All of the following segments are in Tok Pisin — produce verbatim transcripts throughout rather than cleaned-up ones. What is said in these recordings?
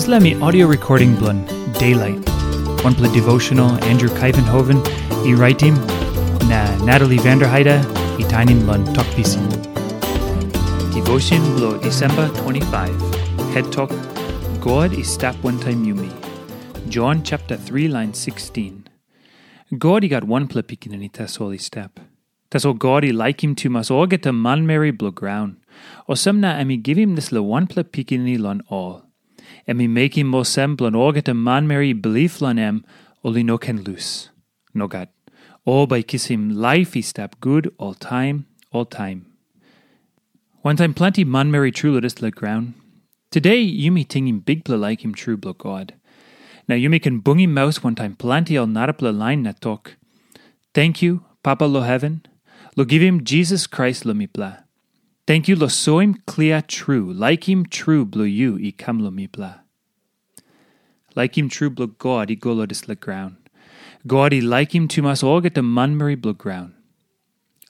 Dispela mi audio recording bilong Daylight, wanpela devotional Andrew Kaivenhoven i raitim, na Natalie Vanderheide i tainim long Tok Pisin. Devotion bilong Disemba twenty-five, het tok, God i stap wantaim yumi. Jon chapter three, lain sixteen. God i gat wanpela pikinini tasol i stap. Tasol God i laikim tumas olgeta manmeri bilong graun. Olsem na em i givim dispela wanpela pikinini long ol. Em i mekim olsem bilong olgeta manmeri i bilip long em, ol i no ken lus. Nogat. Ol bai kisim laip i stap gut oltaim, oltaim. Wantaim planti manmeri tru long dispela graun, today yumi tingim bikpela laikim tru bilong God. Na yumi ken bungim maus wantaim planti ol narapela lain na tok, "Tenkyu, Papa long heven, long givim Jisas Krais long mipela. Tenkyu long soim klia tru laikim tru bilong yu i kam long mipela." Laikim tru bilong God i go long dispela graun. God i laikim tumas olgeta manmeri bilong graun.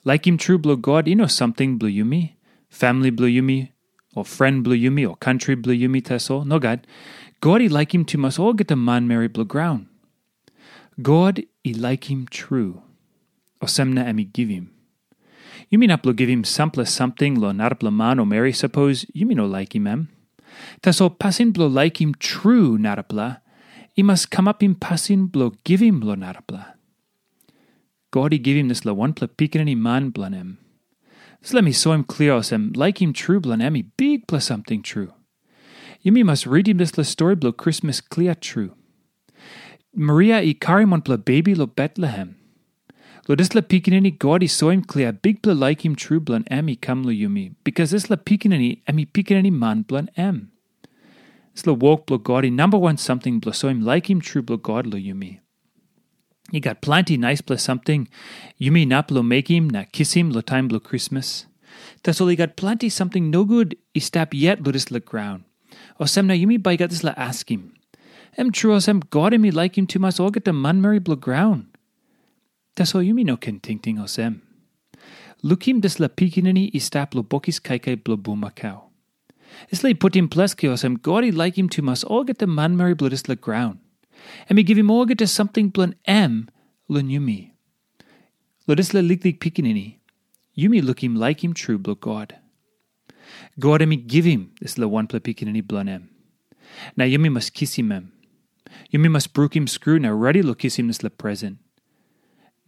Laikim tru bilong God i no samting bilong yumi, famili bilong yumi, o fren bilong yumi, o kantri bilong yumi tasol. Nogat. God i laikim tumas olgeta manmeri bilong graun. God i laikim tru. Olsem na em i givim. Yumi inap long givim sampela samting long narapela man o meri sapos yumi no laikim em. Tasol pasin bilong laikim tru narapela i mas kamapim pasin bilong givim long narapela. God i givim dispela wanpela pikinini man bilong em. Dispela mi soim klia olsem laikim tru bilong em i bikpela samting tru. Yumi mas ritim dispela stori bilong Krismas klia tru. Maria i karim wanpela bebi long Betlehem. Long dispela pikinini God i soim klia bikpela laikim tru bilong em i kam long yumi, bikas dispela pikinini em i pikinini man bilong em. Dispela wok bilong God i namba wan samting bilong soim laikim tru bilong God long yumi. I gat planti naispela samting yumi inap long mekim na kisim long taim bilong Krismas. Tasol i gat planti samting nogut i stap yet long dispela graun. Olsem na yumi bai gat dispela askim, em tru olsem God em i laikim tumas olgeta manmeri bilong graun? Tasol yumi no ken tingting olsem. Lukim dispela pikinini i stap long bokis kaikai bilong bulmakau. Dispela i putim ples olsem God i laikim tumas olgeta manmeri bilong dispela graun. Em i givim olgeta samting bilong em long yumi. Long dispela liklik pikinini, yumi lukim laikim tru bilong God. God em i givim dispela wanpela pikinini bilong em. Na yumi mas kisim em. Yumi mas brukim skru na redi long kisim dispela present.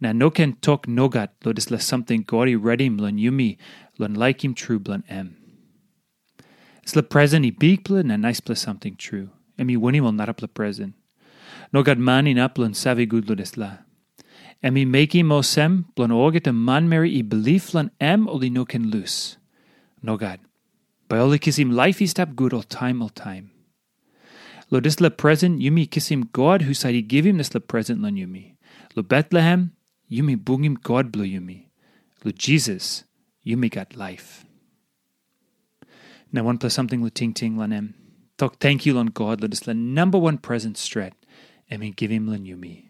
Na no ken tok nogat long dispela samting God i redim long yumi long laikim tru bilong em. Dispela present i bikpela na naispela samting tru. Em i winim ol narapela present. Nogat man inap long save gut long dispela. Em i mekim olsem bilong olgeta manmeri i bilip long em ol i no ken lus. Nogat. Bai ol i kisim laip i stap gut oltaim oltaim. Long dispela present yumi kisim God husat i givim dispela present long yumi. Long Betlehem, yumi bungim God bilong yumi. Long Jisas, yumi gat laip. Na wanpela samting long tingting long em. Tok tenkyu long God long dispela namba wan present stret em i givim long yumi.